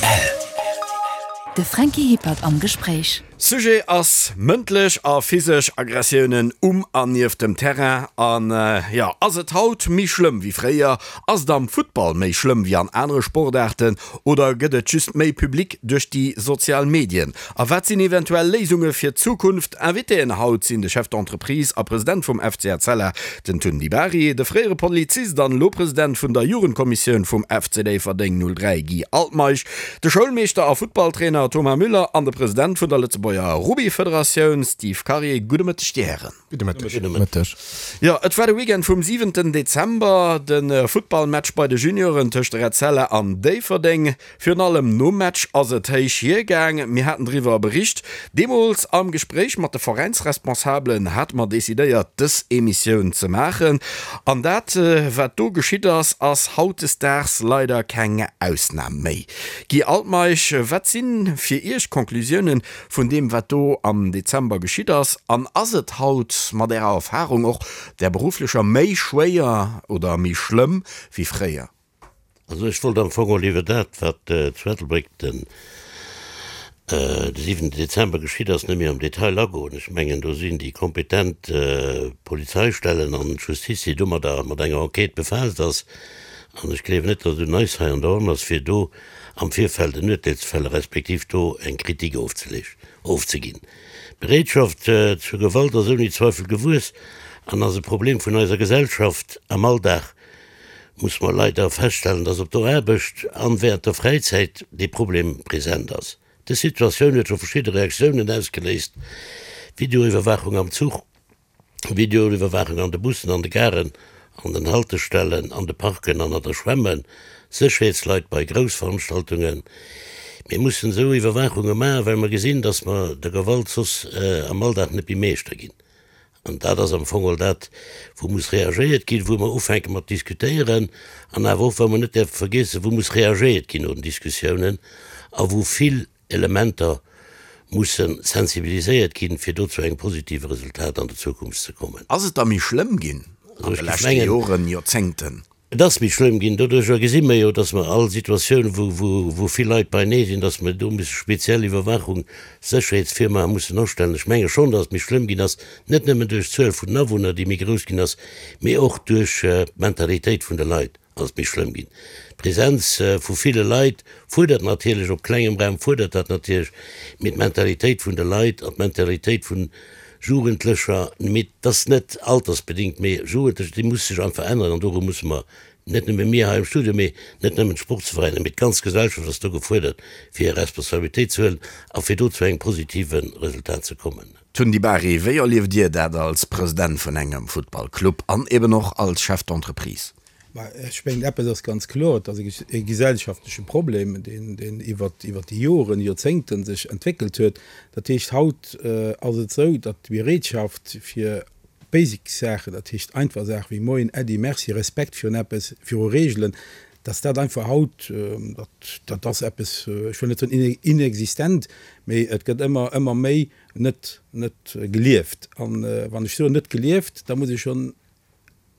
Rtl. De Franky Hippert am Gespréich. Sujet ass mëndlech a physesch Aggressiounen um an nieft dem Terrain. An jo, ass et haut méi schlëmm wéi fréier? Ass et am Futtball méi schlëmm wéi an anere Sportaarten? Oder gëtt et just méi Public duerch déi sozial Medien? A wat sinn eventuell Léisunge fir d'Zukunft? Invitéen haut sinn de Chef d'entreprise a President vum FC Etzella, den Tun Di Bari, de fréiere Polizist an elo President vun der Jugendkommissioun vum FC Déifferdeng 03 Guy Altmeisch, de Schoulmeeschter a Futtballtrainer Thomas Müller an de President vun der Lëtzebuerger Rugbyfederatioun Steve Karier. Gudde Mëtteg, Dir Hären. Gudde Mëtteg. Gudde Mëtteg. Jo, et war de Weekend vum siwenten Dezember, de Futtballmatch bei de Junioren tëscht Etzella an Déifferdeng. Virun allem nom Match ass et héich hiergaang. Mir haten driwwer bericht. Deemools am Gespréich mat de Veräinsresponsabelen hate mer decidéiert, dës Emissioun ze maachen. An dat, wat do geschitt ass, ass hautdesdaags leider keng Ausnam méi. Guy Altmeisch, wat si fir Iech d'Conclusiounen vun deem, wat do am Dezember geschitt ass? An ass et haut mat Ärer Erfarung, och där berufflecher, méi schwéier oder méi schlëmm wéi fréier? Also ech wollt am Fong och iwwer dat, wat zu Ettelbréck den siwenten Dezember geschitt ass, net méi am Detail agoen. Ech mengen, do sinn déi kompetent Polizeistellen an d'Justiz, déi domadder mat enger Enquête befaasst ass. An ech gleewen net, datt et un eis hei an der Ronn ass, fir do am Virfeld en Urteel ze fälle respektiv do eng Kritik ofzeginn. D'Bereetschaft zur Gewalt ass ouni Zweifel gewuess an ass e Problem vun eiser Gesellschaft am Alldag. muss mer leider feststellen, dass op der Aarbecht an während der Fräizäit dee Problem present ass. Dës Situatioun huet scho verschidde Reaktiounen ausgeléist, Videoiwwerwaachung am Zuch, Videoiwwerwaachung an de Bussen, an de Garen, an den Haltestellen, an de Parken an an der Schwämme, Sécherheetsleit bei Groussveranstaltungen. Mir mussen esou Iwwerwaachunge maachen, well mer gesinn, dass mer der Gewalt soss am Alldag net méi Meeschter ginn. An dat ass am Fong och dat, wou muss reagéiert ginn, wou mer ufänke mat diskutéieren an awer och, wou mer net däerfe vergiessen, wou muss reagéiert ginn no den Diskussiounen a wou vill Elementer musse sensibiliséiert ginn, fir do zu engem positive Resultat an der Zukunft ze kommen. Ass et da méi schlëmm ginn an de leschte Joren, Joerzéngten? Et ass méi schlëmm ginn. Doduercher gesi mer jo, dass mer all Situatioun, wou vill Leit beinee sinn, dass mer do musse speziell Iwwerwaachung, Sécherheetsfirmae mussen astellen. Ech menge schonn, dass et méi schlëmm ginn ass, net nëmmen duerch d'Zuel vun den Awunner, déi méi grouss ginn ass, mee och duerch d'Mentalitéit vun de Leit ass et méi schlëmm ginn. D'Presenz vu ville Leit fuerdert natierlech, op klengem Raum fuerdert dat natierlech, mee d'Mentalitéit vun de Leit an d'Mentalitéit vun Jugendlecher, mee et ass net altersbedingt, mee Jugendlecher, déi muss sech einfach änneren an doru musse mer, net nëmme mir hei am Studio, mee net nëmmen d'Sportsveräiner, mee d'ganz Gesellschaft ass do gefuerdert, fir hir Responsabilitéit ze huelen a fir do zu engem positive Resultat ze kommen. Tun Di Bari, wéi erlieft Dir dat als President vun engem Futtballclub an eben och als Chef d'entreprise? Mä ech mengen, eppes ass ganz kloer, Et ass e gesellschaftleche Problem, deen iwwert déi Joren, Joerzéngte sech entwéckelt huet. Dat heescht, haut ass et esou, datt d'Bereetschaft fir basic Saachen, dat heescht einfach Saache wéi Moien, Äddi, Merci, Respekt virun eppes, viru Reegelen, datt dat einfach haut, dat ass eppes, ech wëll net soen inexistent, mee et gëtt ëmmer, ëmmer méi net, net gelieft. An wann ech soen net gelieft, da muss ech schonn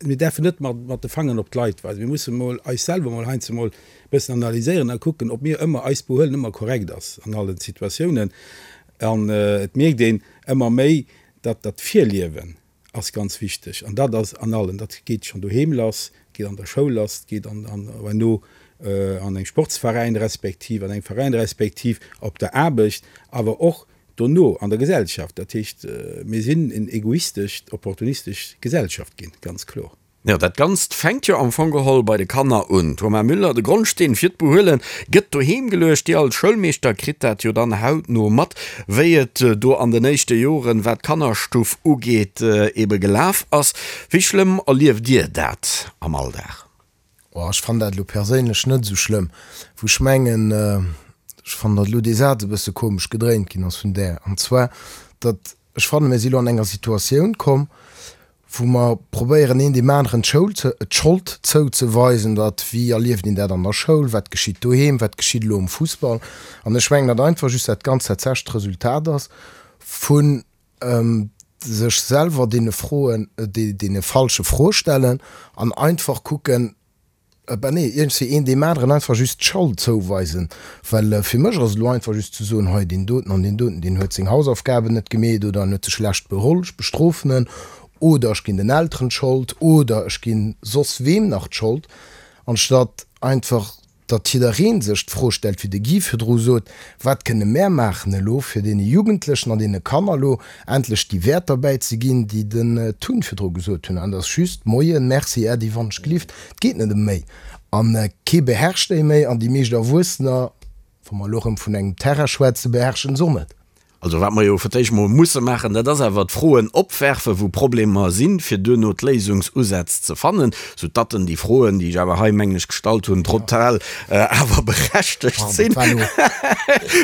Mir däerfen net mat de Fangeren op d'Leit weisen. Mir musse mol eis selwer mol heiansdo mol e bëssen analyséieren a kucken, ob mir ëmmer, eist Behuelen ëmmer korrekt ass an allen Situatiounen. An et mierkt een ëmmer méi, datt dat Virliewen ass ganz wichteg. An dat ass an allen, dat geet schonn doheem lass, geet an der Schoul lass, geet an herno an engem Sportsveräin respektiv an engem Veräin respektiv op der Aarbecht, awer och Dono an der Gesellschaft. Dat heescht, mir sinn en egoistesch, opportunistesch Gesellschaft ginn, ganz kloer. Jo, dat Ganzt fänkt jo am Fong geholl bei de Kanner un. Thomas Müller, De Grondsteen fir d'Behuele gëtt doheem geluecht. Dir als Schoulmeeschter kritt dat jo dann hautno mat, wéi et do an den éischte Joren, wat d'Kannerstuff ugeet, ebe gelaf ass. Wéi schlëmm erlieft Dir dat am Alldag? Oh, ech fannen dat elo perséinlech net esou schlëmm, wou ech mengen, ech fannen, datt elo dee Saz e bësse komesch gedréint ginn ass vun där, an zwar, datt ech fannen, mir si elo an enger Situatioun komm, wou mer probéieren, een deem aneren d'Schoul ze, d'Schold zouzeweisen, datt, wéi erlieft een dat an der Schoul, wat geschitt doheem, wat geschitt elo um Fussball. An ech mengen, datt einfach just dat Ganzt tatsächlech d'Resultat ass vun sech selwer deene Froen, deene falsche Froe stellen an einfach kucken. Ben nee, iergendwéi een deem aneren einfach just d'Schold zouweisen. Well fir mech ass et elo einfach just ze soen, hei deen doten an deen doten, deen huet seng Hausaufgaben net gemeet oder en huet sech schlecht beholl, ech bestrofen en oder ech ginn den Elteren d'Schold oder ech ginn soss weem nach d'Schold, anstatt einfach datt jidderee sech d'Fro stellt, wéi de Guy virdru sot, Wat kënne mär maachen elo, fir deene Jugendlechen an deene Kanner elo endlech déi Wäerter bäizeginn, déi den Tun virdru gesot hunn? An et ass just, Moien, Merci, Äddi, wann ech gelift. Et geet net ëm méi. A kee beherrscht déi méi. An déi meescht Erwuessener, wa mer elo erëm vun engem Terrain schwätzen, beherrschen se och net. Also wat mer jo fir d'éischt mol musse maachen, dat ass awer d'Froen opwerfen, wou Problemer sinn, fir duerno d'Léisungsusätz ze fannen, sou datten déi Froen, déi ech awer hei, mengen ech, gestallt hunn, total awer berechtegt sinn.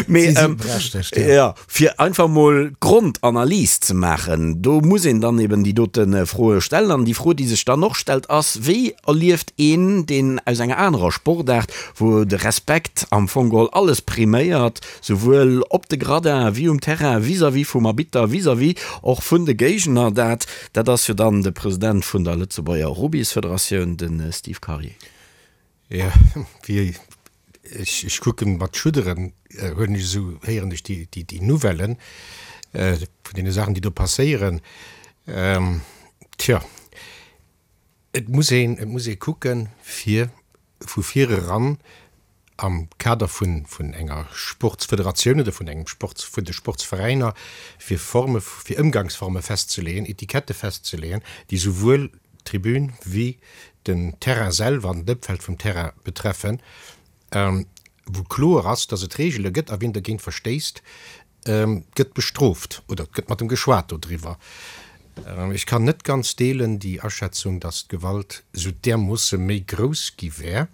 Mee jo, fir einfach mol d'Grondanalys ze maachen, do muss een dann eben déi dote Froe stellen. An déi Fro, déi sech dann och stellt, ass, Wéi erlieft een, deen aus enger anerer Sportaart, wou de Respekt am Fong geholl alles priméiert, Souwuel op de Gradin wéi um Terrain, vis-à-vis vum Arbitter, vis-à-vis och vun de Géigner. Dat, dat ass jo dann de President vun der Lëtzebuerger Rubbysfederatioun, de Steve Karier. Jo, wéi ech, ech kucken mat Schudderen, huelen ech esou, héieren ech déi, déi, déi Nouvellen vun deene Saachen, déi do passéieren. Tjo, et muss een, et muss ee kucken, fir vu vir eran am Kader vun vun enger Sportsfederatioun oder vun engem Sports, vun de Sportsveräiner, fir Forme, fir Ëmgangsforme festzeleeën, Etikette festzeleeën, déi souwuel d'Tribün wéi den Terrain selwer an d'Ëmfeld vum Terrain betreffen, wou kloer ass, dass et Reegele gëtt a wien dergéint verstéisst, gëtt bestrooft oder et gëtt mat em geschwat dodriwwer. Ech kann net ganz deelen déi Aschätzung, datt d'Gewalt esou därmoosse méi grouss gi wär.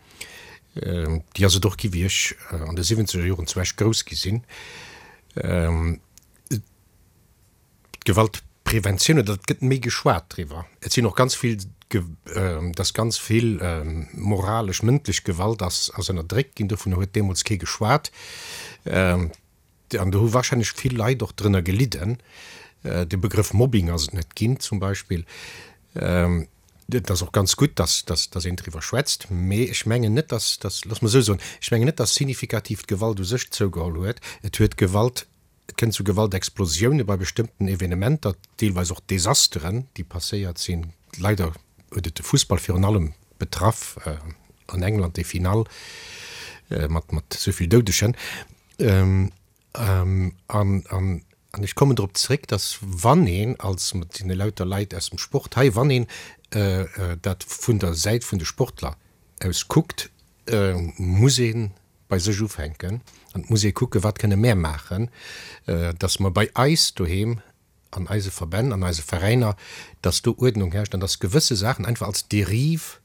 Déi ass et och gi wéi ech an de siwwenzeger Joren zu Esch grouss gi sinn. D'Gewaltpreventioun oder et gëtt méi geschwat driwwer. Et sinn och ganz vill, datt ganz vill moralesch, mëndlech Gewalt ass ënnerdréckt ginn. Dovunner huet deemools kee geschwat. An do hu warscheinlech vill Leit och drënner gelidden. De Begrëff Mobbing ass et net ginn zum Beispill. Et ass och ganz gutt, dass, dass, dass een driwwer schwätzt. Mee ech mengen net, dass, dass, looss mer esou soen, ech mengen net, dass signifikativ d'Gewalt u sech zougeholl huet. Et huet Gewalt, et kënnt zu Gewaltexplosioune bei bestëmmten Evenementer, deelweis och Desasteren, déi passéiert sinn. Leider huet et de Fussball virun allem betraff, an England déi Finall mat, mat esou vill Doudegen. An ech kommen drop zréck, dass wann een als, et sinn elauter Leit aus dem Sport hei, wann een dat vun der Säit vun de Sportler aus kuckt, muss ee bei sech ufänken an et muss ee kucken, wat kënne mär maachen, dass mer bei eis doheem an eise Verbänn, an eise Veräiner, dass do Uerdnung herrscht an dass gewësse Saachen einfach als Dérive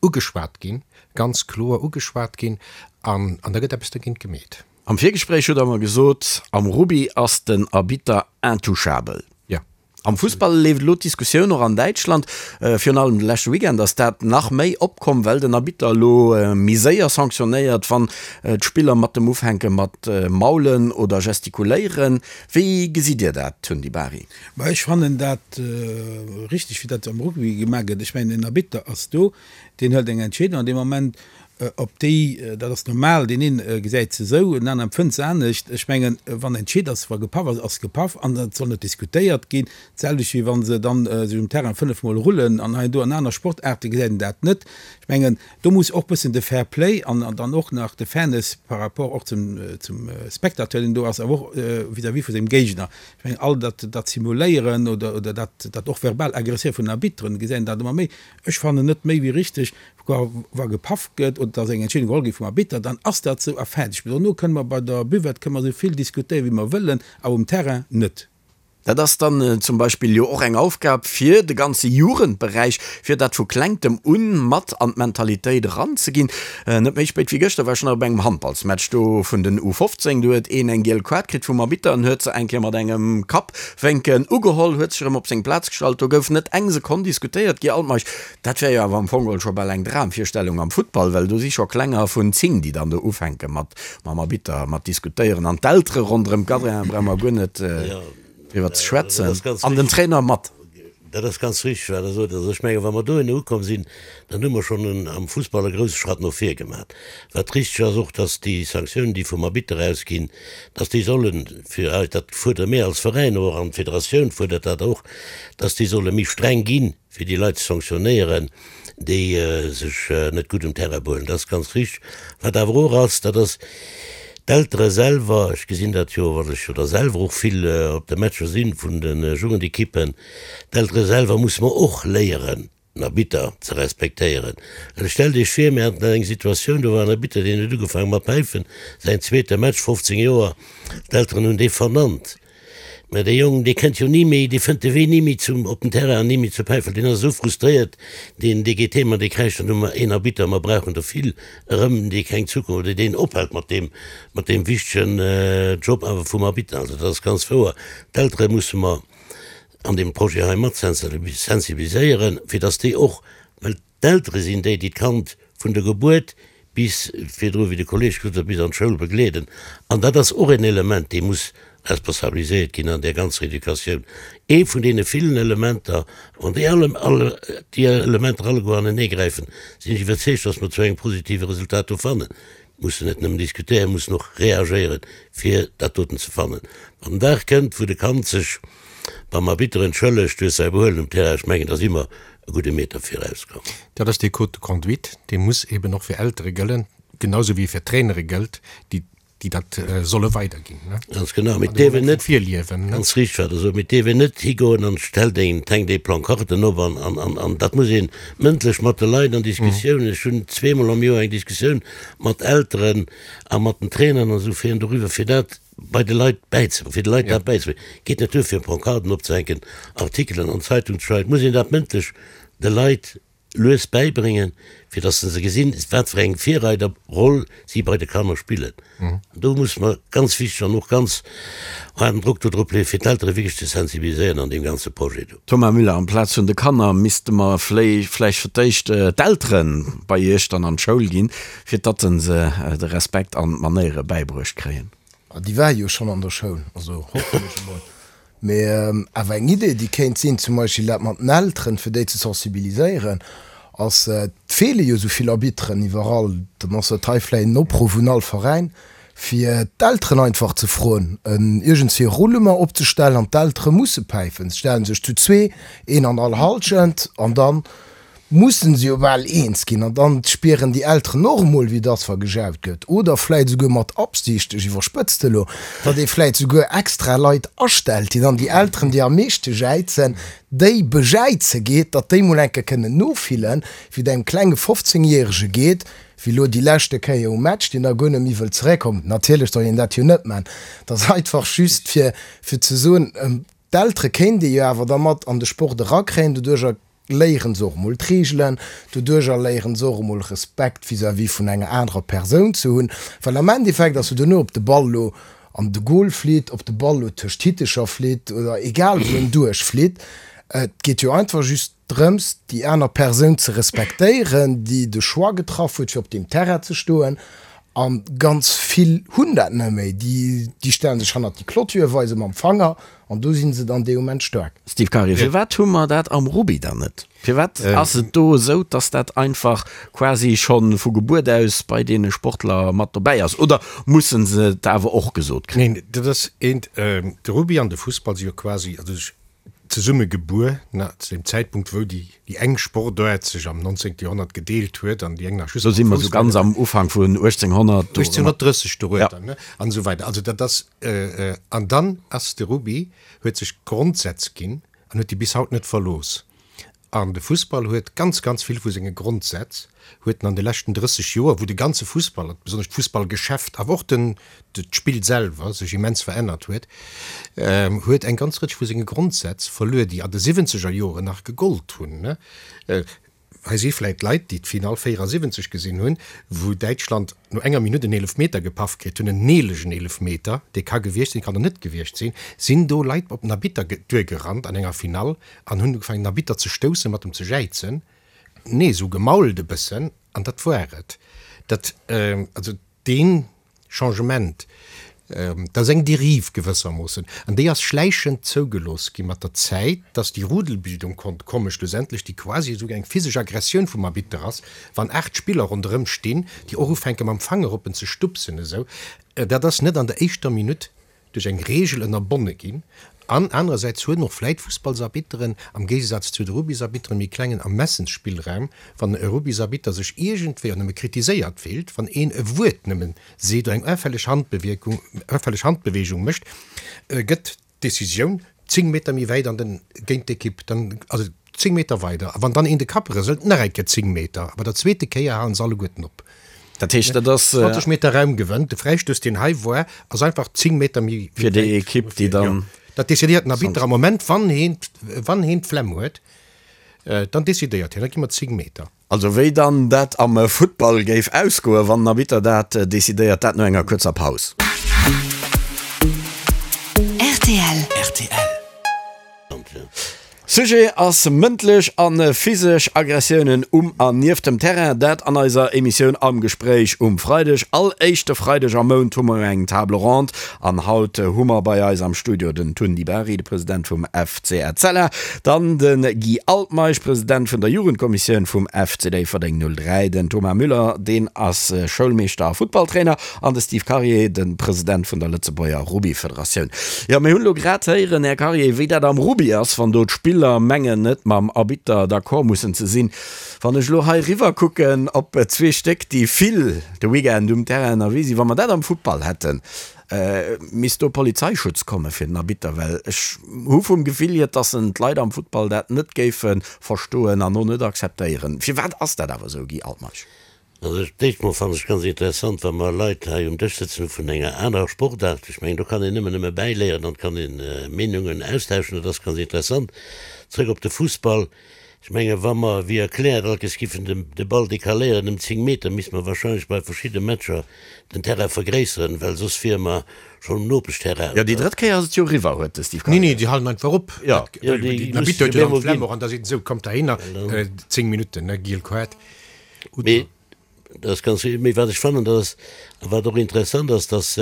ugeschwat ginn, ganz kloer ugeschwat ginn an an da gëtt eppes dergéint gemeet. Am Virgespréich hutt Der mer gesot, am Rugby ass den Arbitter intouchable. Jo. Am Fussball leeft elo d'Diskussioun, och an Däitschland, virun allem de leschte Weekend ass dat nach méi opkomm, well den Arbitter elo méi séier sanktionéiert, wann d'Spiller mat dem ufänke mat maulen oder gestikuléieren. Wéi gesitt Dir dat, Tun Di Bari? Ma ech fannen dat richteg, wéi dat am Rugby gemaach gëtt. Ech mengen, en Arbitter ass do, deen hëlt eng Entscheedung an deem Moment, op déi, dat ass normal, deen een gesäit se esou, en aneren empfënnt se anescht. Ech mengen, wann entscheet ass, wa gepaff ass, ass gepaff an et soll net diskutéiert ginn. D'selwecht wéi wa se dann sech um Terrain fënnefmol rullen an hei an do. An aner Sportaarte gesäit een dat net. Ech mengen, Do muss och bëssen de Fair Play an dann och nach de Fairness par rapport och zum zum Spectateur, deen do ass, awer och vis-à-vis vu sengem Géigner. Ech mengen, all dat dat Simuléieren oder oder dat dat och verbal Agresséiere vun den Arbitteren, gesäit een dat ëmmer méi. Ech fannen net méi wéi richteg, wa wa gepaff gëtt oder dass eng Entscheedung geholl gétt vum Arbitter, dann ass dat esou a fäerdeg. Mee dono kënne mer bei der Buvette kënne mer esou vill diskutéieren, wéi mer wëllen, awer um Terrain net. Dat ass dann zum Beispill jo och eng Aufgab fir de ganze Jugendberäich, fir dat vu Klengtem un mat an d'Mentalitéit eranzeginn. Net méi spéit wéi gëschter war ech nach op engem Handballsmatch do vun den U 15. Do huet een eng giel Kaart kritt vum Arbitter an huet se eng Kéier mat engem Kappwénken ugeholl, huet sech erëm op seng Plaz gestallt. Do gouf net eng Sekonn diskutéiert. Guy Altmeisch, Dat wär jo awer am Fong geholl scho bal eng Dramvirstellung am Futtball, well do si scho Klenger vun 10, déi dann do ufänke mat mam Arbitter mat diskutéieren an d'Eltere ronderëm d'Gadrian brauche mer guer net driwwer ze schwätzen an den Trainer mat. Dat ass ganz richteg, wat Der sot. Also ech mengen, wa mer dohinner ukomm sinn, dann hu mer schonn en, am Fussball e grouse Schratt no vir gemaach. Wat richteg ass och, dass déi Sanktiounen, déi vum Arbitter ausginn, dass déi sollen, fir eis, dat fuerdere mir als Veräin och an d'Federatioun fuerdert dat och, dass déi solle méi streng ginn, fir déi Leit ze sanktionéieren, déi sech net gutt um Terrain behuelen. Dat ass ganz richteg. Wat awer och ass, dat ass d'Eltere selwer, ech gesinn dat jo, well ech jo da selwer och vill op de Matcher si vun de Jugendekippen, d'Eltere selwer musse mer och léieren, den Arbitter ze respektéieren. Well stellt Iech vir, mir haten eng Situatioun, do war en Arbitter, deen huet ugefaange mat päifen, säin zweete Match, 15 Joer, d'Elteren hunn dee vernannt. Mä dee Jong, dee kënnt jo ni méi, dee fënnt de Wee ni méi zum, op den Terrain an ni méi zur Päiffel. Deen ass esou frustréiert, deen, dee geet heem an dee kräischt dann, Hu mer een Arbitter, mer brauchen der vill erëm, dee keng Zukunft oder deen ophält mat deem, mat deem wichtegen Job awer vum Arbitter. Also dat ass ganz wouer. D'Eltere musse mer an deem Projet hei mat sensibiliséieren, fir datt déi och, well D'Eltere sinn déi, déi d'Kand vun der Gebuert bis virdru, wéi de Kolleg gesot huet, bis an d'Schoul begleeden. An dat ass och en Element, dee muss responsabiliséiert ginn an där ganzer Educatioun. Ee vun deene villen Elementer. Wann déi alle, alle, déi Elementer alleguer aneneegräifen, sinn ech iwwerzeegt, dass mer zu engem positive Resultat do fannen. Mussen net nëmmen diskutéieren, mussen och reagéieren, fir dat doten ze fannen. Wann den Dag kënnt, wou de Kand sech beim Arbitter entschëllegt duerch säi Behuelen um Terrain, ech mengen, da si mer e gudde Meter virauskomm. Dat ass dee Code de conduite, dee muss eben och fir Eltere gëllen, genau sou wéi e fir Trainere gëllt, déi déi dat solle weiderginn. Ganz genau, mee et dierf een net, virliewen, ganz richteg wat Der sot, mee et dierf een net higoen an stellt een, hänkt ee Plancarten op an, an, an, an dat muss ee mëndlech mat de Leit an Diskussiounen, ech hunn zweemol am Joer eng Diskussioun mat Elteren a mat den Trainern an esou fir doriwwer, fir dat bei de Leit bäizebréngen, fir de Leit dat bäizebréngen. Geet net duer fir Pancarten opzehänken, Artikelen an d'Zeitung ze schreiwen, et muss een dat mëndlech de Leit lues bäibréngen, fir dass se gesinn, wat fir eng Virreiderroll si bei de Kanner spillen. An do muss mer ganz wichteg an och ganz haarden Drock do drop leeën, fir d'Eltere wierklech ze sensibiliséieren an deem ganze Projet do. Thomas Müller, Amplaz vun de Kanner misste mer vläicht fir d'éischt d'Eltere bei iech dann an d'Schoul ginn, fir datt se de Respekt an d'Manéiere bäibruecht kréien. Déi ware jo schonn an der Schoul, also hoffen ech emol. Mee awer eng Idee, déi kéint sinn, zum Beispill dat mat den Elteren, fir déi ze sensibiliséieren, ass, et feele jo esou vill Arbitteren iwwerall, dann ass dat hei vläicht en Opruff un all Veräin, fir d'Elteren einfach ze froen, iergendswéi e Roulement opzestellen an d'Eltere musse päifen. Se stelle sech zu zwee, een an all Hallschent, an dann mussen se jo bal eens ginn an dann spieren déi Elteren och emol wéi et ass wa gejaut gëtt oder vläit esouguer mat Absicht, ech iwwerspëtzt elo, datt ee vläit esouguer extra Leit astellt, déi dann déi Elteren déi am meeschte jäizen, déi bejäize geet, datt déi mol eng Kéier kënnen nofillen, wéi et engem klenge 15 Järege geet, wéi elo déi leschte Kéier um Match, deen da guer net méi wëllt zeréckkommen. Natierlech soll een dat jo net man, et ass einfach just fir fir ze soen, d'Eltere kéint ee jo awer da mat an de Sport erakréien, doduercher léieren se och emol d'Reegelen, doduercher léieren se och emol Respekt vis-à-vis vun enger anerer Persoun ze hunn, well am Endeffekt ass jo duerno, ob de Ball elo an de Goal flitt, ob de Ball elo tëscht d'Hittecher flitt oder egal wou en duerchflitt, et geet jo einfach just drëms, déi aner Persoun ze respektéieren, déi de Choix getraff huet, fir op deem Terrain ze stoen. A ganz vill hunn dat net méi, déi stelle sech hannert déi Clôture, weise mam Fanger An do sinn se dann dee Moment staark. Steve Karier, Firwat hu mer dat am Rugby dann net? Firwat ass et do esou, datt dat einfach quasi scho vu Gebuert aus bei deene Sportler mat dobäi ass? Oder musse se et awer och gesot kréien? Neen, dat ass eent. De Rugby an de Fussball si jo quasi also zesumme gebuer, zu deem Zäitpunkt wou déi déi eng Sportaart sech am 19. Joerhonnert gedeelt huet an déi eng nach just Do si mer esou ganz am Ufank vun 1800. 1830 dorueter, ne, an esou weider. Also dat ass, an dann ass de Rugby, huet sech Grondsätz ginn an huet déi bis haut net verlooss. An de Fussball huet ganz, ganz vill vu senge Grondsätz huet en an de leschten 30 Joer, wou de ganze Fussball, besonnesch d'Fussballgeschäft, awer och den, d'Spill selwer sech immens verännert huet, huet eng ganz Rëtsch vu senge Grondsätz verluer, déi an de siwwenzeger Joren nach gegollt hunn. Hei si vläit Leit, déi d'Finall 74 gesinn hunn, wou Däitschland no enger Minutt en Eelefmeter gepaff kritt hunn, en neelegen Eelefmeter, dee ka gewiescht sinn, kann och net gewiescht sinn, sinn do Leit op den Arbitter duergerannt an enger Finall an hunn ugefaangen, den Arbitter ze stoussen, mat em ze jäizen. Nee, esou gemault e bëssen, an dat war et. Dat, also dee Changement. Dat ass eng Dérive gewëssermoossen, an déi ass schläichend zougelooss gi mat der Zäit, dass déi Rudelbildung konnt kommen, schlussendlech, déi quasi esouguer eng physesch Aggressioun vum Arbitter ass, wann 8 Spiller ronderëm stinn, déi och ufänke mam Fanger op en ze stupsen esou. Dat ass net an der éischter Minutt duerch eng Reegel ënnerbonne ginn. An anerersäits hunn och vläit Fussballsarbitteren, am Géigesaz zu de Rugbysarbitteren, méi klengen Ermessensspillraum, wann e Rugbysarbitter sech iergendwéi och nëmme kritiséiert fillt, wann een e Wuert nëmmen seet oder eng auffälleg Handbewierkung, auffälleg Handbewegung mécht, gëtt d'Decisioun 10 Meter méi wäit an den, géint d'Ekipp, dann, also 10 Meter weider. A wann dann een de Kapp rëselt, nach eng Kéier 10 Meter. A bei der zweete Kéier halen se alleguerten op. Dat heescht, dat ass. 20 Meter Raum gewënnt. De Fräistouss, deen hei war, ass einfach 10 Meter méi wäit. Fir déi Ekipp, déi dann. Dat decidéiert den Arbitter am Moment, wann heen, wann heen d'Flemm huet, dann decidéiert hien, da gi mer 10 Meter. Also wéi dann dat am Futtball géif ausgoen, wann den Arbitter dat decidéiert, dat no enger kuerzer Paus. Rtl. Sujet ass mëndlech a physesch Aggressiounen um an nieft dem Terrain. Dat an eiser Emissioun Am Gespréich um Freideg. All éischte Freideg am Mount hu mer eng Table ronde an haut hu mer bei eis am Studio den Tun Di Bari, de President vum FC Etzella, Dann de Guy Altmeisch, President vun der Jugendkommissioun vum FC Déifferdeng 03, den Thomas Müller, deen ass Schoulmeeschter a Futtballtrainer, an de Steve Karier, de President vun der Lëtzebuerger Rugbyfederatioun. Jo, mir hunn elo grad héieren, Här Karier, wéi dat am Rugby ass, wann do d'Spiller mengen, net mam Arbitter d'accord mussen ze sinn. Wann ech elo hei riwwer kucken op zwee Stéck, déi vill de Weekend um Terrain ënnerwee sinn, wa mer dat am Futtball hätten, Misst do Polizeischutz komme fir den Arbitter? Well ech hu vum Gefill hier, dass en d'Leit am Futtball dat net géife verstoen an och net akzeptéieren. Firwat ass dat awer esou, Guy Altmeisch? Also d'éischt mol fannen ech ganz interessant, wa mer Leit hei um Dësch sëtzen hu vun enger anerer Sportaart. Ech mengen, do kann een nëmmen nëmme bäiléieren an et kann een Meenungen austauschen. Dat ass ganz interessant. Zrëck op de Fussball. Ech mengen, wa mer, wéi erkläert, all Kéiers giffen de Ball decaléieren ëm 10 Meter, misste mer wahrscheinlech bei verschidde Matcher den Terrain vergréisseren, well soss wiere mer schonn um Nopeschterrain. Jo, déi drëtt Kéier ass et jo eriwwer, huet de Steve Kayser. Nee, nee, déi halen einfach op. Jo. Jo, déi musse jo op eemol ginn. An da seet en esou, Kommt heihinner, 10 Minutten, ne, giel Kaart. Mee Dat ass ganz richtig. Mee wat ech fannen, dat ass, a wat och interessant ass, dass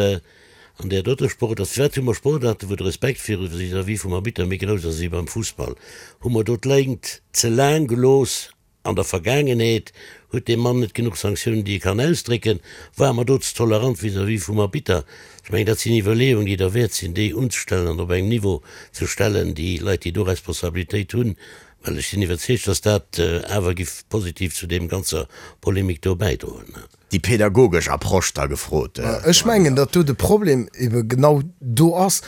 an där doter Sportaart, firwat hu mer Sportaarten, wou de Respekt viru vis-à-vis vum Arbitter méi grouss ass wéi beim Fussball? Hu mer do d'Léngt ze laang gelooss an der Vergaangenheet? Huet dee Mann net genuch Sanktiounen, déi e kann ausdrécken? Ware mer do ze tolerant vis-à-vis vum Arbitter? Ech mengen, dat sinn Iwwerleeungen, déi derwäert sinn, déi unzestellen an op engem Niveau ze stellen, déi Leit, déi do Responsabilitéit hunn, Well ech sinn iwwerzeegt, dass dat awer giff positiv zu deem ganzer Polemik do bäidroen. Déi pädagogesch Approche da gefrot. Ech mengen, datt do de Problem ebe genau do ass.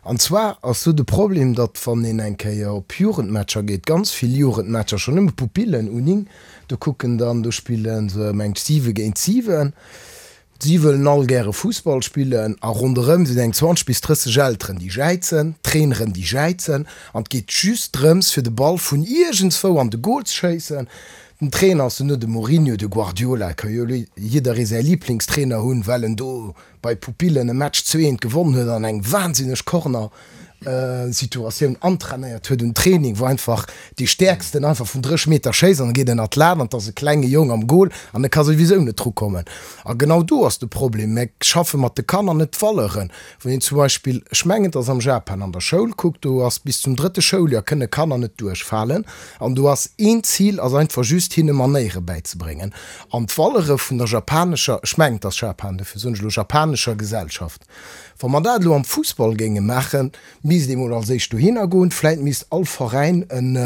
An zwar ass do de Problem, datt wann een eng Kéier op Jugendmatcher geet, ganz vill Jugendmatcher, schonn nëmme Pupillen, U9, do kucken dann, do spille se mengt 7 géint 7, Si wëllen all gäre Fussball spillen a ronderëm sinn eng 20 bis 30 Elteren, déi jäizen, Traineren, déi jäizen an et geet just drëms, fir de Ball vun iergendswou an de Goal ze schéissen. Den Trainer ass duerno de Mourinho, de Guardiola, et ka jo jidderee säi Liblingstrainer hunn, well en do bei Pupillen e Match 2, 1 gewonnen huet an eng wahnsinneg Corner Situatioun antrainéiert huet un Training, wou einfach dee Stäerksten einfach vun 30 Meter schéisst an e geet ënnert d'Lat an et ass e klenge Jong am Goal an e ka souwisou net drukommen. A genau do ass de Problem. Mir schaffe mat de Kanner net d'Valeuren. Wann een zum Beispill, ech mengen et ass am Japan, an der Schoul kuckt, do ass bis zum drëtte Schouljoer kënne Kanner net duerchfalen an do ass een Zil ass einfach just hinne Manéiere bäizebréngen an d'Valeure vun der japanescher, ech mengen et ass Japan, dofir soen ech elo japanescher Gesellschaft. Wa mer dat elo am Fussball géinge maachen, misst ee mol als éischt dohinner goen. Vläit misst all Veräin en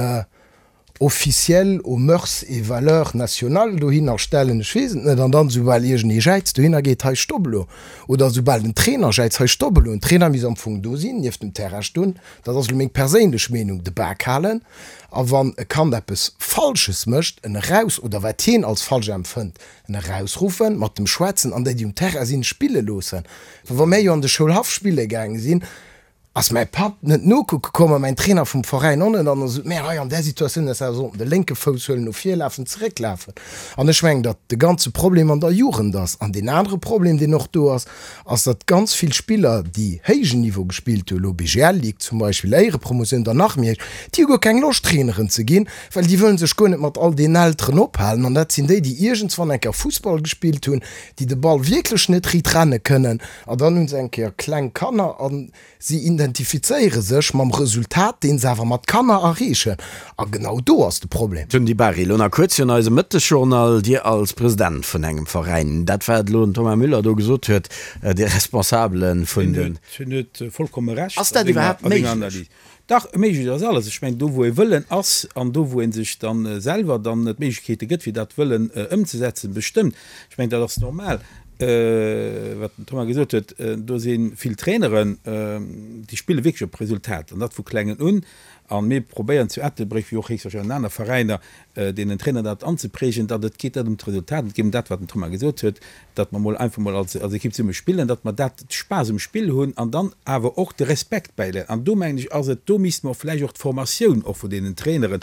Officiel aux mœurs et valeurs nationales dohinner stellen, ech weess et net. An dann, soubal iergendee jäizt, dohinner geet, hei stopp elo. Oder soubal den Trainer jäizt, hei stopp elo. Den Trainer misst am Fong do sinn, nieft dem Terrain stoen, dat ass elo meng perséinlech Meenung, de Bak halen. A wann e Kand eppes Falsches mécht, en eraus, oder wat hien als falsch empfënnt, En erausruffen, mat dem schwätzen an déi, déi um Terrain sinn, spille loossen. Well wa mär jo an de Schoulhaff spille gaange sinn. Ass mäi Papp net nokucke komm a mäin Trainer vum Veräin och net an da sot, mä hei an där Situatioun häss awer sollten de lénke Fouss huelen, no vir lafen, zeréck lafen. An ech mengen, datt de ganze Problem an der Jugend ass. An deen anere Problem, deen och do ass, ass, datt ganz vill Spiller, déi héijen Niveau gespillt hunn, elo BGL Ligue zum Beispill, Éierepromotioun, dann nach méi héich, déi hu guer keng Loscht Traineren ze ginn, well déi wëllen sech guer net mat all deenen Elteren ophalen. An dat sinn déi, déi iergendswann eng Kéier Fussball gespillt hunn, déi de Ball wierklech net riit renne kënnen. An dann hu se eng Kéier kleng Kanner a si identifizéiere sech mam Resultat, dee se awer mat Kanner erreechen. A genau do ass de Problem. Tun Di Bari, elo nach kuerz virun eisem Mëttesjournal, Dir als President vun engem Veräin, dat wat elo den Thomas Müller do gesot huet, dee Responsabele vun den. Hien huet vollkomme Recht a senger Analys. Dach, méiglech ass alles. Ech mengen, do wou e Wëllen ass an do wou ee sech da selwer dann d'Méiglechkeete gëtt, fir dat Wëllen ëmzesetzen, bestëmmt. Ech mengen, dat ass normal, wat den Thomas gesot huet. Do si vill Traineren, déi spille wierklech op Resultat, an dat vu klengen un. A mir probéieren zu Ettelbréck, wéi och héchstwahrscheinlech an aner Veräiner, deenen Trainer dat anzeprägen, datt et geet net ëm d'Resultat, et geet ëm dat, wat den Thomas gesot huet, datt mer mol einfach mol als als Ekipp zesumme spillen, datt mer dat Spaass um Spill hunn an dann awer och de Respekt bäiléieren. An do mengen ech ass et, do misste mer och vläicht och d'Formatioun och vun deenen Traineren,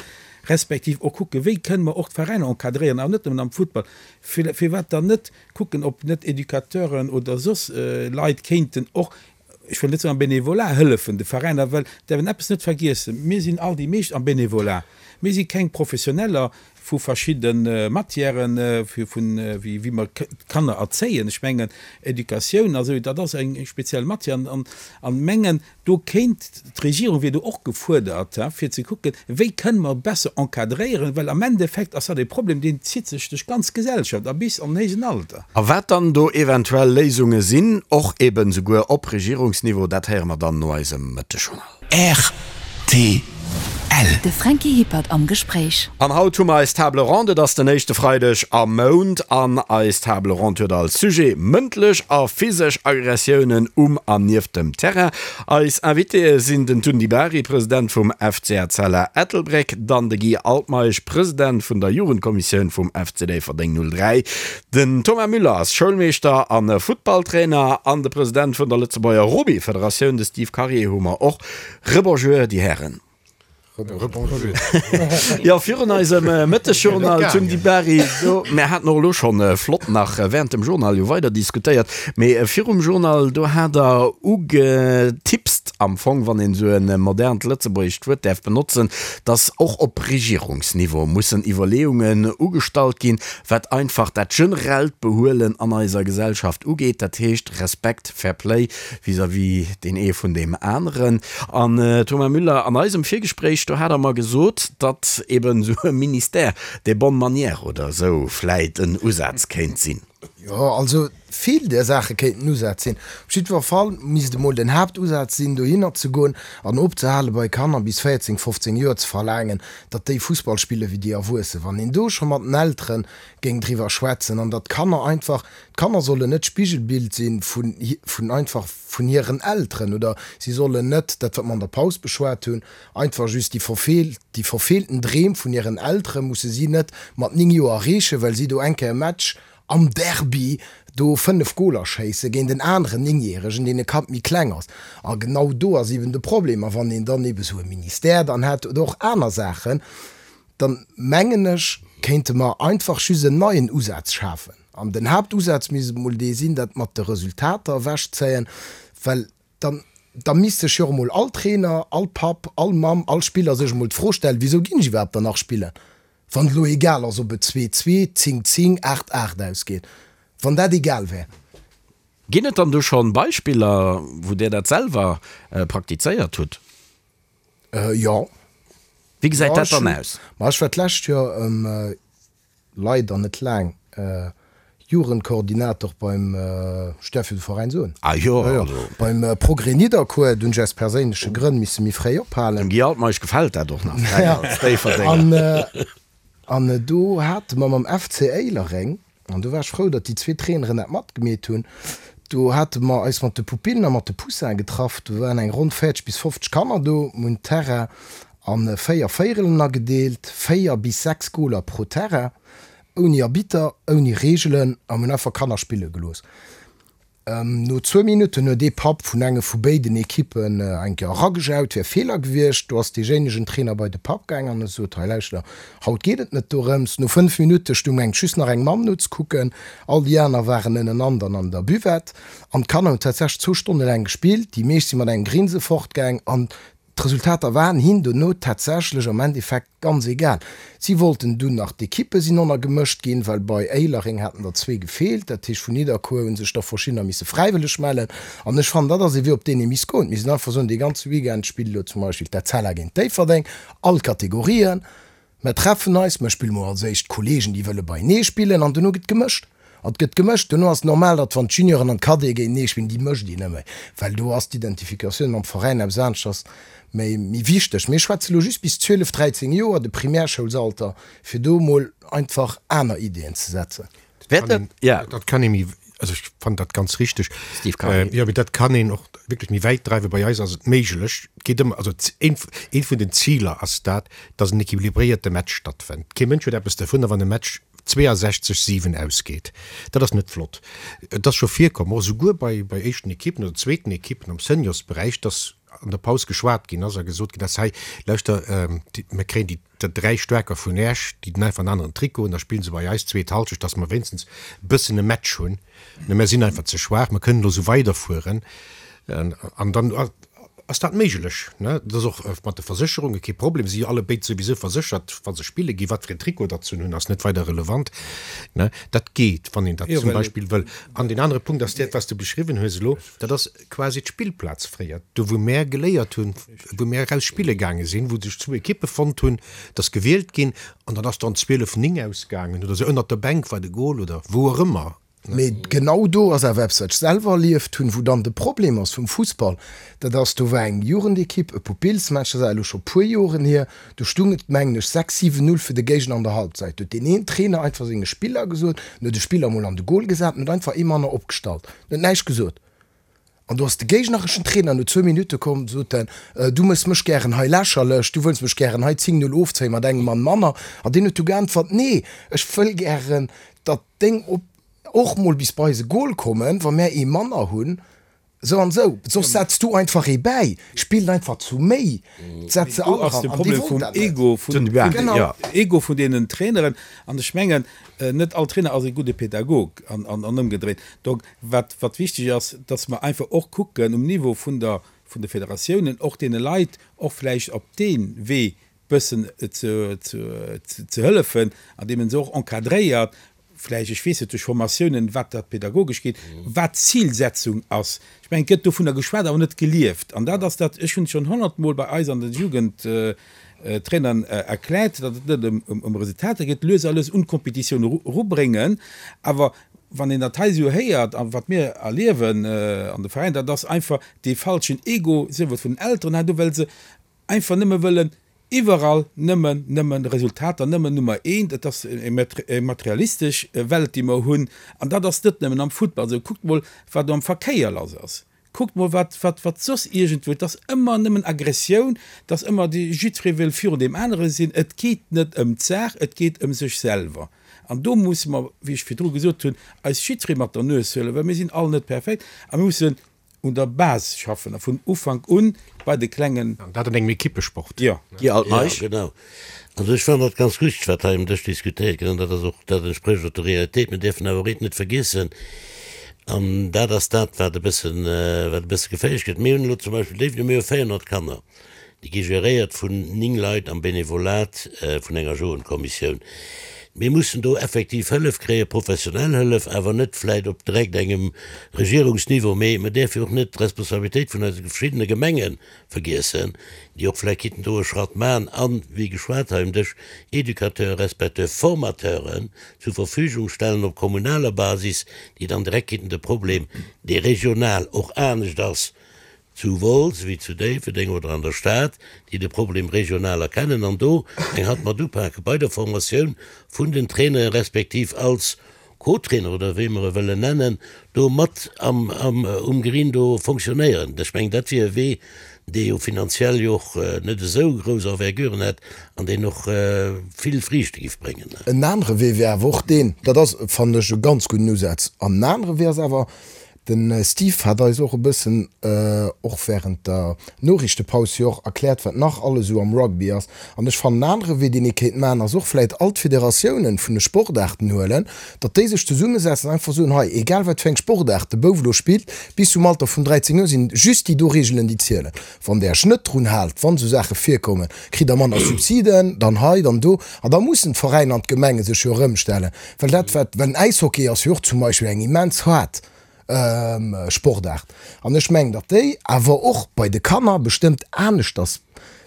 respektiv och kucken, wéi kënne mer och d'Veräiner encadréieren, awer net nëmmen am Futtball, firwat dann net kucken, ob net Educateuren oder soss Leit kéinten och ech wëll net soen am Bénévolat hëllefen de Veräiner, well däerf een eppes net vergiessen, mir sinn all déi meescht am Bénévolat, mir si keng Professioneller vu verschidde Matièren, vun wéi wéi mer d'Kanner erzéien. Ech mengen Educatioun a sou, dat ass eng speziell Matière an an mengen do kéint d'Regierung wier do och gefuerdert, fir ze kucken, wéi kënne mer besser encadréieren, well am Endeffekt ass dat e Problem, deen zitt sech duerch d'ganz Gesellschaft a bis an den héijen Alter. A wat dann do eventuell Léisunge sinn, och eben souguer op Regierungsniveau, dat héiere mer dann no eisem Mëttegjournal. Rtl. De Franky Hippert am Gespréich. An haut hu mer eis Table ronde. Et ass den éischte Freideg am Mount an eis Table ronde huet als Sujet mëndlech a physesch Aggressiounen um an nieft dem Terrain. Eis Invitéë sinn den Tun Di Bari, President vum FC Etzella Ettelbréck, dann de Guy Altmeisch, President vun der Jugendkommissioun vum FC Déifferdeng 03, den Thomas Müller ass Schoulmeeschter a Futtballtrainer an de President vun der Lëtzebuerger Rugbyfederatioun, de Steve Karier hu mer och. Rebonjour, déi Hären. Rebonjour. Jo, virun eisem Mëttesjournal zum Di Bari, do, mär haten och elo schonn flott nach während dem Journal jo weider diskutéiert, mee virum Journal, do hat Der ugetipst am Fong, wann een esou e modernt lëtzebuergescht Wuert däerf benotzen, dass och op Regierungsniveau mussen Iwwerleeungen ugestallt ginn, wat einfach dat generellt Behuelen an eiser Gesellschaft ugeet, dat heescht Respekt, Fair Play vis-à-vis deen ee vun deem aneren. An Thomas Müller, an eisem Virgespréich, do hat Der mer gesot, datt eben esou e Ministère des bonnes manières oder esou vläit en Usaz kéint sinn. Jo, also vill där Saache kéinten Usätz sinn. Op jiddwer Fall misst emol den Haaptusaz sinn, dohinner ze goen an opzehale bei Kanner bis 14, 15 Joer ze verlaangen, datt déi Fussball spille wéi déi Erwuessen. Wann een do scho mat den Eltere géing driwwer schwätzen an datt d'Kanner einfach, d'Kanner sollen net d'Spigelbild si vun, vun einfach vun hiren Elteren oder si sollen net, dat wat mer an der Paus beschwat hunn, einfach just déi verfeelt, déi verfeelten Dreem vun hiren Eltere musse si net mat 9 Joer erreechen, well si do eng Kéier e Match am Derby do 5 Goler schéisse géint en aneren Néngjäregen, deen e Kapp méi kleng ass. A genau do ass eben de Problem. A wann een dann ebe sou e Ministère dann hätt oder och aner Saachen, dann mengen ech, kéinte mer einfach just en neien Usaz schafen. An den Haaptusaz misst emol dee sinn, dat mat de Resultater ewechzéien, well dann, da misst sech jo och emol all Trainer, all Papp, all Mamm, all Spiller sech emol d'Fro stellen, Wisou ginn ech iwwerhaapt dann nach spillen, wann et elo egal ass, ob et 2, 2, 10, 10, 8, 8 ausgeet? Wann dat egal wär. Ginn et dann do schonn Beispiller, wou Dir dat selwer praktizéiert hutt? Jo. Wéi gesäit dat dann aus? Ma ech war d'lescht Joer, leider net laang, Jugendkoordinator beim, ech däerf jo de Veräin soen? Ah jo, also. Beim Progrès Nidderkuer. Do hunn ech aus perséinleche Grënn misse méi fréi ophalen. Dem Guy Altmeisch gefält dat och nach, als Déifferdenger. An do hate mer mam FC Éilereng, An do war ech frou, datt déi zwee Traineren dat matgemeet hunn. Do hate mer eis mat de Pupillen a mat de Poussinen getraff. Do waren eng ronn 40 bis 50 Kanner do. Mir hunn d'Terrain a 4 Véierelen agedeelt, 4 bis 6 Goler pro Terrain, ouni Arbitter, ouni Reegelen, a mir hunn einfach Kanner spille gelooss. No zwou Minutten huet ee Papp vun enge vu béiden Ekippen eng Kéier eragejaut, wär Feeler gewiescht. Do ass deejéinegen Trainer bei de Papp gaang an huet gesot, Hei lauschter, haut geet et net dorëms. No 5 Minutte stung enk just nach eng Mamm nozekucken, all déi aner waren ënnenan dann an der Buvette. An d'Kanner hunn tatsächlech zwou Stonne laang gespillt, déi meescht si mat engem Grinse fortgaang an D'Resultater waren hinn dono tatsächlech am Endeffekt ganz egal. Si wollten dunn nach, d'Ekippe sinn onnner gemëscht ginn, well bei Éilereng haten der zwee gefeelt. Dat heescht vun Nidderkuer hu sech der verschiddener misse fräiwëlleg mellen. An ech fannen, dat ass ee Wee op deen ee misst goen. Mir sinn einfach soen, dee ganze Weekend spillt elo zum Beispill d'Etzella géint Déifferdeng, all Kategorien. Mer treffen eis, mer spille mol als éischt d'Kollegen, déi wëlle beienee spillen, an dono gëtt gemëscht. An et gëtt gemëscht. Dono ass et normal, datt wann d'Junioren an d'Cadete géintenee spillen, déi mëscht een net méi, well do ass d'Identifikatioun mam Veräin eppes aneschters, méi, méi wichteg. Mir schwätze lo just bis 12, 13 Joer, de Primärschoulsalter, fir do mol einfach aner Ideeën ze setzen. Dat kann ee méi, also ech fannen dat ganz richteg, jo, mee dat kann een och wierklech méi wäit dreiwen. Bei eis ass et méiglech, et geet ëmmer, also eent vun den Ziler ass dat, datt en equilibréierte Match stattfënnt. Kee Mënsch huet eppes dervunner, wann e Match 62, 7 ausgeet. Dat ass net flott. Et ass scho virkomm, och esouguer bei bei éischten Ekippen oder zweeten Ekippen am Seniorsberäich, datt an der Paus geschwat ginn ass a gesot ginn ass, hei lauschter, mir kréien déi Der 3 Staarker vun Esch, déi den einfach en aneren Trikot hunn, da spillen se bei eis zweet Halschecht, dass mer wéinstens e bëssen e Match hunn. Mä mer sinn einfach ze schwaach, mer kënnen elo esou weiderfueren an dann ass dat méiglech. Dat ass och mat de Versécherunge kee Problem, si jo allebéid souwisou verséchert, wa se spille ginn. Wat fir en Trikot datt se hunn, ass net weider relevant. Dat geet, wann een dat zum Beispill wëll. An deen anere Punkt ass dat, wat s de beschriwwen hues elo, dat ass quasi d'Spillplaz fréier, do wou mär geléiert hunn, wou mär eraus spille gaange sinn, wou sech zwou Ekippe fonnt hunn, et ass gewielt ginn an dann ass dann 12, 9 ausgaangen oder sou, ënnert der Bänk war de Goal oder wou och ëmmer. Mee genau do ass awer eppes, wat ech selwer erlieft hunn, wou dann de Problem ass vum Fussball, dat ass, do war eng Jugendekipp, e Pupillsmatch, dat ass awer elo scho puer Joren hier, do stung et, mengen ech, 6, 7, 0 fir de Géigner an der Halbzeit. Do huet deen een Trainer einfach senge Spiller gesot, en huet e Spiller emol an de Goal gesat, en huet einfach ee manner opgestallt, en huet näischt gesot. An do ass de géignereschen Trainer no zwou Minutte komm, sot en, Du méchs mech gären hei lächerlech, du wëlls mech gären hei 10, 0 ofzéien mat engem Mann manner. An deen huet du geäntwert, Nee, ech wëll gären, datt deng op och mol bis bei eise Gol kommen, wa mär ee manner hunn, esou an esou. Soss setz du einfach ee bäi, spillt einfach zu méi, setz se all eran. Do ass de An dee Problem wollt vum dat net. Ego, vum Ego vun deenen Traineren. An ech mengen, net all Trainer ass e gudde Pädagog an ëmgedréit. Donc, Wat, wat wichteg ass, dass mer einfach och kucken um Niveau vun der, vun de Federatiounen, och deene Leit och vläicht op dee Wee bëssen ze, ze, ze hëllefen, andeem en se och encadréiert, vläicht, ech weess net, duerch Formatiounen, wat dat pedagogesch geet, wat d'Zilsetzung ass. Ech mengen, et gëtt dovunner geschwat, awer net gelieft. An dat ass dat, ech hunn et schonn honnertmol bei eis an de Jugendtrainern erkläert, datt et net ëm, ëm Resultater geet, lues a lues un d'Kompetitioun erubréngen, awer Wann een dat hei esou héiert a wat mir erliewen an de Veräiner, dat ass einfach dee falschen Ego, sief et vun den Elteren hei do, well se einfach nëmme wëllen iwwerall nëmmen, nëmmen Resultater, nëmmen Nummer eent. Et ass eng materialistesch Welt, déi mer hunn an dat ass net nëmmen am Futtball esou. Kuckt mol, wat am Verkéier lass ass. Kuckt mol wat, wat, wat soss iergendwou, et ass ëmmer nëmmen Aggressioun, et ass ëmmer dee, jiddweree wëll virun deem anere sinn. Et geet net ëm d'Saach, et geet ëm sech selwer. An do musse mer, wéi ech virdru gesot hunn, eis jiddweree mat der Nues huelen, well mir sinn all net perfekt a mir mussen un der Base schaffen a vun Ufank un bei de Klengen. An dat an engem Ekippesport. Jo. Guy Altmeisch. Jo, genau. Also ech fannen dat ganz richtig, wat hei um Dësch diskutéiert gëtt, an dat ass och, dat entsprécht och der Realitéit. Mir däerfen awer och eent net vergiessen, an dat ass dat, wat e bëssen, wat e bësse geféierlech gëtt. Mir hunn elo zum Beispill Déifferdeng, mir hu 400 Kanner, déi gi geréiert vun 9 Leit am Benevolat vun enger Jugendkommissioun. Mir mussen do effektiv Hëllef kréien, professionell Hëllef, awer net vläicht op direkt engem Regierungsniveau, mee mir däerfe jo och net d'Responsabilitéit vun eise verschiddene Gemengen vergiessen, déi och vläicht kinnten do e Schratt maachen an, wéi geschwat hei um Dësch, Educateuren respektiv Formateuren zur Verfügung stellen op kommunaler Basis, déi dann direkt kinnten de Problem, dee regional och anescht ass zu Wolz wéi zu Déifferdeng oder an der Stad, déi de Problem regional erkennen an do eng Hand mat upake bei der Formatioun vun den Traineren respektiv als Co-Trainer oder wéi mer e wëllen nennen, do mat am, am, um Green do fonctionnéieren. Ech mengen, dat wier e Wee, dee jo finanziell jo och net esou grouss Enverguren hätt an deen och vill Friichte giff bréngen. En anere Wee wär awer och deen, dat ass, fannen ech, e ganz gudden Usaz, an en anere Wee ass awer. De Steve hat eis och e bëssen, och während der Noriichtepaus jo och erkläert, wat nach alles esou am Rugby ass. An ech fannen, en anere Wee, deen ee kéint maachen, ass och vläit all d'Federatiounen vun de Sportaarten huelen, datt déi sech zesummesetzen an einfach soen, hei, egal wat fir eng Sportaart de Bouf elo spillt, bis zum Alter vun 13 Joer sinn just déi do Reegelen, déi zielen. Wann Der Iech net drun haalt, wann esou Saache virkommen, kritt Der manner Subsiden, dann hei, dann do. An da mussen d'Veräiner an d'Gemenge sech jo erëmstellen. Well dat wat, well den Äishockey ass jo och zum Beispill eng immens haart Sportaart. An ech mengen, datt déi awer och bei de Kanner bestëmmt aneschters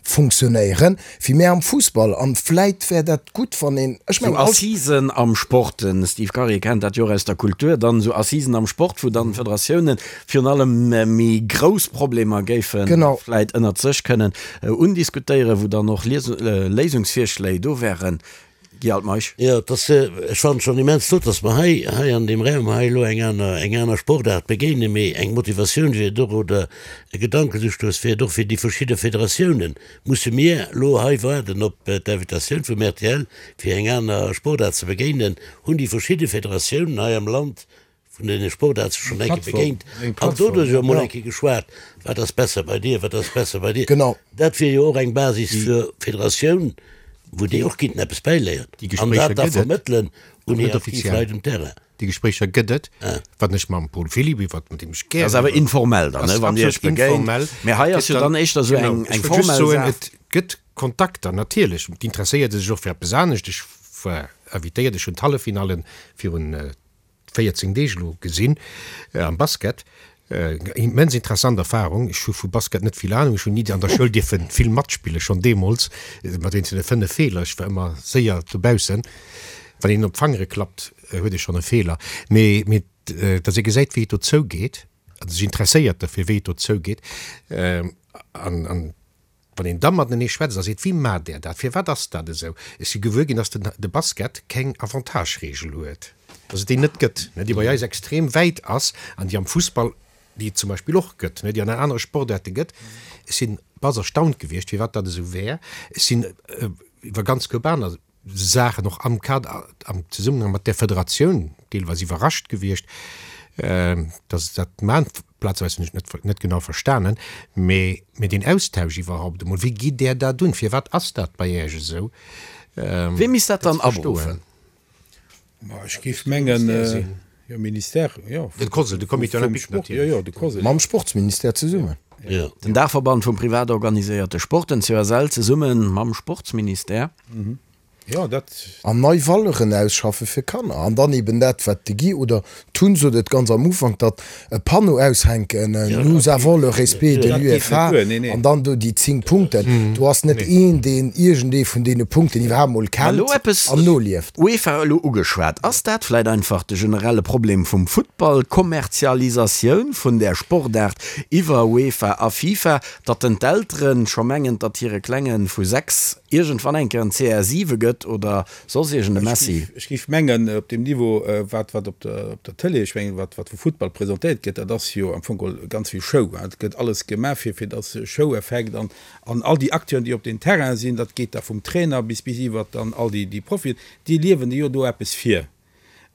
funktionéieren, wéi mär am Fussball. An vläit wär dat gutt, wann een, ech mengen, all. Sou Assisen am Sport, den Steve Karier kennt dat jo och aus der Kultur, dann esou Assisen am Sport, wou dann d'Federatiounen virun allem méi grouss Problemer géife vläit ënnert sech kënnen undiskutéieren, wou dann och Léisungsvirschléi do wären. Guy Altmeisch. Jo, et ass, ech fannen et schonn immens flott, dass mer hei, hei an deem Raum hei elo eng aner, eng aner Sportaart begéinen, mee eng Motivatioun wier et och oder e Gedankenustouss wier et och fir déi verschidde Federatiounen. Musse mir elo hei waarden op d'Invitatioun vum rtl, fir eng aner Sportaart ze begéinen? Hunn déi verschidde Federatiounen hei am Land vun deene Sportaarte schonn eng Kéier begéint an doduerch jo emol eng Kéier geschwat, wat ass besser bei dir, wat ass besser bei dir. Genau. Dat wier jo och eng Basis fir d'Federatioun, wou déi och kinnten eppes bäiléieren an dat da vermëttelen un hir aktiv Leit um Terrain. Déi Gespréicher gëtt et, wann ech mam Paul Philipp iwwert, mat deem ech gären. Dat ass awer informell dann, wann Dir Iech begéint. Mä hei ass jo dann éischter esou eng formell Saach. Et gëtt Kontakter, natierlech. D'interesséiert sech och fir eppes anescht. Ech war invitéiert, ech hunn d'Halleffinallen virun 14 Deeg elo gesinn am Basket. Immens interessant Erfahrung. Ech hu vu Basket net vill Ahnung. Ech hunn ni an der Schoul dierfe vill matspillen, schonn deemools mat eenzele 5 Feeler. Ech war ëmmer séier dobaussen. Wann een op d'Fangere klappt, huet ee schonn e Feeler. Mee mee datt ee gesäit, wéi et do zougeet, a sech interesséiert derfir, wéi et do zougeet an an Wann een da matenee schwätzt a seet, Wéi maacht Där dat? Firwat ass dat esou? Ech si gewuer ginn, dass de Basket keng Avantage-Reegel huet, dass et déi net gëtt, déi bei eis extrem wäit ass an déi am Fussball, déi et zum Beispill och gëtt, déi an anere Sportaarte gëtt. Ech sinn bass erstaunt gewiescht, firwat dat esou wär. Ech sinn iwwer ganz koup aner Saachen och am Kader, am Zesummenhang mat där Federatioun deelweis iwwerrascht gewiescht, dass se dat maachen. Plazeweis hunn ech et net genau verstanen, mee mee deen Austausch iwwerhaupt emol, wéi gitt Där dat un, firwat ass dat bei Iech esou? Wee misst dat dann aberuffen? Ma ech géif mengen, jo, Ministère, jo. Den COSL, de Comité olympique natierlech. Jo, jo, de COSL. Mam Sportsministère zesummen. Jo. Den Daachverband vum privat organiséierte Sport, den COSL, zesumme mam Sportsministère. Jo, dat. An nei Valeuren ausschaffe fir Kanner. An dann eben dat, wat de Guy oder d'Tun sot et ganz am Ufank, datt e Panneau aushänken, Nous avons le respect de l'UEFA, an dann do déi 10 Punkten. Do ass net een, deen iergendee vun deene Punkten iwwerhaapt mol kennt an nolieft. UEFA elo ugeschwat. Ass dat vläit einfach de generelle Problem vum Futtball, d'Kommerzialisatioun vun där Sportaart iwwer UEFA a FIFA, datt den d'Eltere scho mengen, datt hire Klenge vu 6 iergendwann eng Kéier en CR7 gëtt oder Soss iergend e Messi? Ech géif mengen, op deem Niveau, wat, wat op der, op der Tëlee, ech mengen, wat, wat vu Futtball presentéiert gëtt, dat ass jo am Fong geholl ganz vill Show. Et gëtt alles gemaach, fir, fir dass Show-Effekt an, an all déi Acteuren, déi op den Terrain sinn, dat geet da vum Trainer bis, bis iwwert dann all déi, déi Profien, déi liewen jo do eppes vir.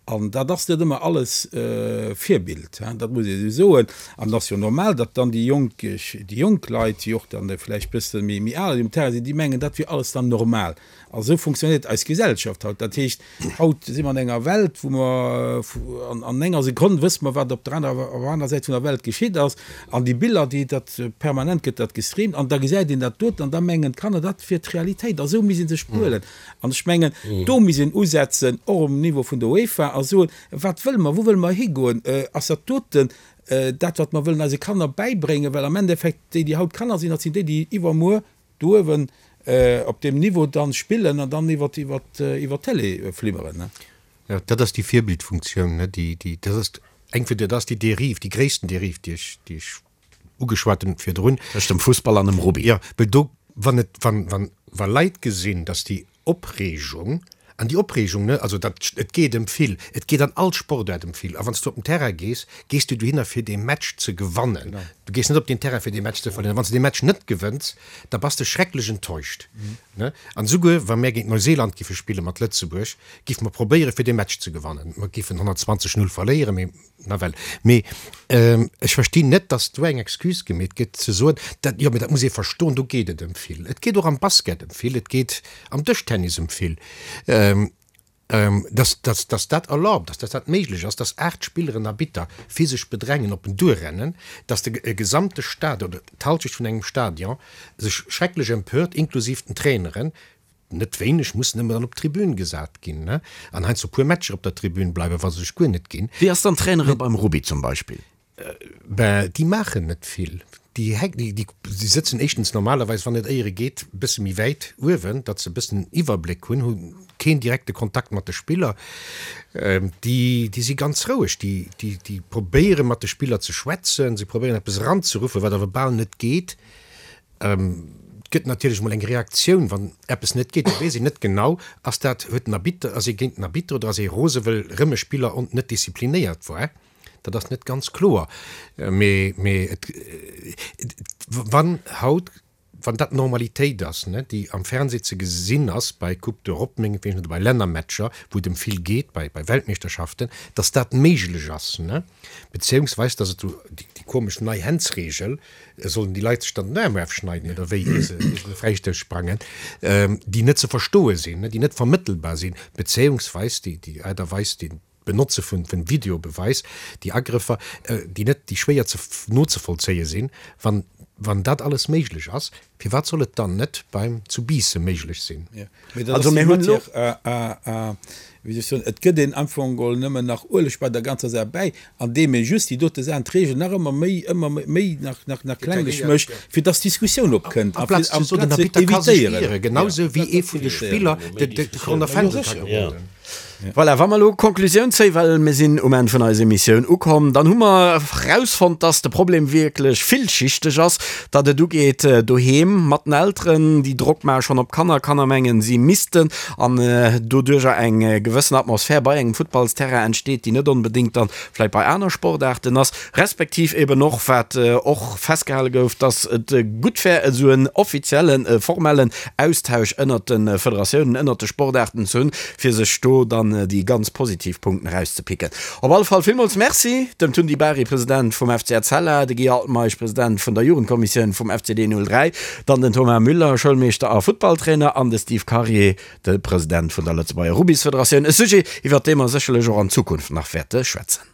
An dat ass net ëmmer alles Virbild, dat muss ee esou soen. An et ass jo normal, datt dann déi jonk, déi jonk Leit, déi och dann vläicht bësse méi, méi al um Terrain sinn, déi mengen, dat wier alles dann normal. A sou funktionéiert eis Gesellschaft haut. Dat heescht, haut si mer an enger Welt, wou mer an enger Sekonn wësse mer, wat op der anerer, op der anerer Säit vun der Welt geschitt ass. An déi Biller, déi dat permanent gëtt dat gestreamt an da gesäit een dat doten an da mengen d'Kanner, dat wier d'Realitéit. A sou misst ee sech behuelen. An ech mengen, do misst een usetzen, och um Niveau vun der UEFA, a soen, Wat wëlle mer? Wou wëlle mer higoen? Ass dat doten dat, wat mer wëllen eise Kanner bäibréngen? Well am Endeffekt, déi, déi haut Kanner sinn, dat sinn déi, déi iwwermuer do uewen op deem Niveau dann spillen an dann iwwer d'Télé flimmeren. Jo, dat ass déi Virbildfunktioun, déi, dat ass eng vun, dat ass déi Dérive, déi gréissten Dérive, déi ech, déi ech ugeschwat hunn virdrun. Tëscht dem Fussball an dem Rugby. Jo, well do, wann et, wann, wann, wa Leit gesinn, datt déi Opreegung. An déi Opreegung, ne, also dat, et geet ëm vill, et geet an all Sportaart ëm vill. A wann s du op den Terrain gees, gees du dohinner fir dee Match ze gewannen. Du gees net op deen Terrain fir dee Match ze verléieren. Wann s du dee Match net gewënns, da bass de schrecklech enttäuscht, ne. An esouguer wa mär géint Neuseeland giffe spille mat Lëtzebuerg, giffe mer probéiere fir dee Match ze gewannen. Mer giffen 120, 0 verléieren, mee Nawell, mee ech verstinn net, dass do eng Excuse gemeet gëtt, ze soen, dat, jo, mee dat muss ee verstoen, do geet et ëm vill. Et geet och am Basket ëm vill, et geet am Dëschtennis ëm vill. Dass, dass, dass dat erlaubt ass, dass dat méiglech ass, dass 8 Spilleren Arbitter physesch bedrängen, op en duerrennen, dass de e gesamte Stadion oder d'Halschecht vun engem Stadion sech schrecklech empört, inklusiv den Traineren, Net wéineg mussen ëmmer dann op d'Tribün gesat ginn, ne? An heiansdo puer Matcher op der Tribün bleiwen, wa se sech guer net ginn. Wéi ass dann d'Trainere beim Rugby zum Beispill? Ben, déi maachen net vill. Déi hänken, déi, déi sëtzen éischtens normalerweis, wann et éiere geet, e bësse méi wäit uewen, datt se e bëssen en Iwwerbléck hunn, hu keen direkte Kontakt mat de Spiller. Déi, déi si ganz roueg. Déi, déi, déi probéiere mat de Spiller ze schwätzen, se probéieren eppes eranzeruffen, wat awer bal net geet. Et gëtt natierlech emol eng Reaktioun, wann eppes net geet. Da weess een net genau, ass dat, huet den Arbitter, ass ee géint den Arbitter oder ass ee rose wëll rëm e Spiller on net disziplinéiert war. Dat ass net ganz kloer. Mee, mee et, wann haut, wann dat d'Normalitéit ass, ne, déi am Fernseh ze gesinn ass bei Coupe d'Europe mengetwegen oder bei Lännermatcher, wou et ëm vill geet, bei, bei Weltmeeschterschaften, datt dat méiglech ass, ne, beziéungsweis datt et déi komesch nei Handsregel, Sollen déi Leit sech dann den Aarm erfschneiden oder wéi, ier se de Fräistouss sprangen, déi net ze verstoe sinn, déi net vermëttelbar sinn, bezéiungsweis déi Aart a Weis, déi d'Benotze vun Videobeweis, déi Agrëffer, déi net, déi schwéier ze nozevollzéie sinn, wann, wann dat alles méiglech ass, firwat soll et dann net beim zu Biissen méiglech sinn? Mee dat ass déi Matière à, wéi soll ech soen, et gëtt een am Fong geholl nëmmen nach Ueleg bei der ganzer Saach bäi, andeem ee just déi dote Saachen, d'Reegel nach ëmmer méi, ëmmer méi nach, nach, nach klenglech mécht, fir dass Diskussioun opkënnt, amplaz ze soen, den Arbitter ka sech ieren, genau sou wéi ee vun de Spiller de Corner Fendel ka geroden. Voilà, wa mer elo Konklusioun zéien, well mir sinn um Enn vun eiser Emissioun ukomm, dann hu mer erausfonnt, dass de Problem wierklech villschichteg ass, datt et ugeet doheem mat den Elteren, déi Drock maache schonn op d'Kanner, Kanner mengen, si missten, an doduercher eng gewëssen Atmosphär bei engem Futtballsterrain entsteet, déi net onbedéngt dann vläicht bei aner Sportaarten ass, respektiv eben och, wat och festgehale gouf, dass et gutt wär, esou en offiziellen, formellen Austausch ënnert de Federatiounen, ënnert de Sportaarten ze hunn, fir sech do dann déi ganz positiv Punkten erauszepicken. Op alle Fall villmools Merci dem Tun Di Bari, President vum FC Etzella, de Guy Altmeisch, President vun der Jugendkommissioun vum FCD 03, dann den Thomas Müller, Schoulmeeschter a Futtballtrainer, an de Steve Karier, de President vun der Lëtzebuerger Rubbysfederatioun. E Sujet, iwwert dee mer sécherlech och an Zukunft nach wäerte schwätzen.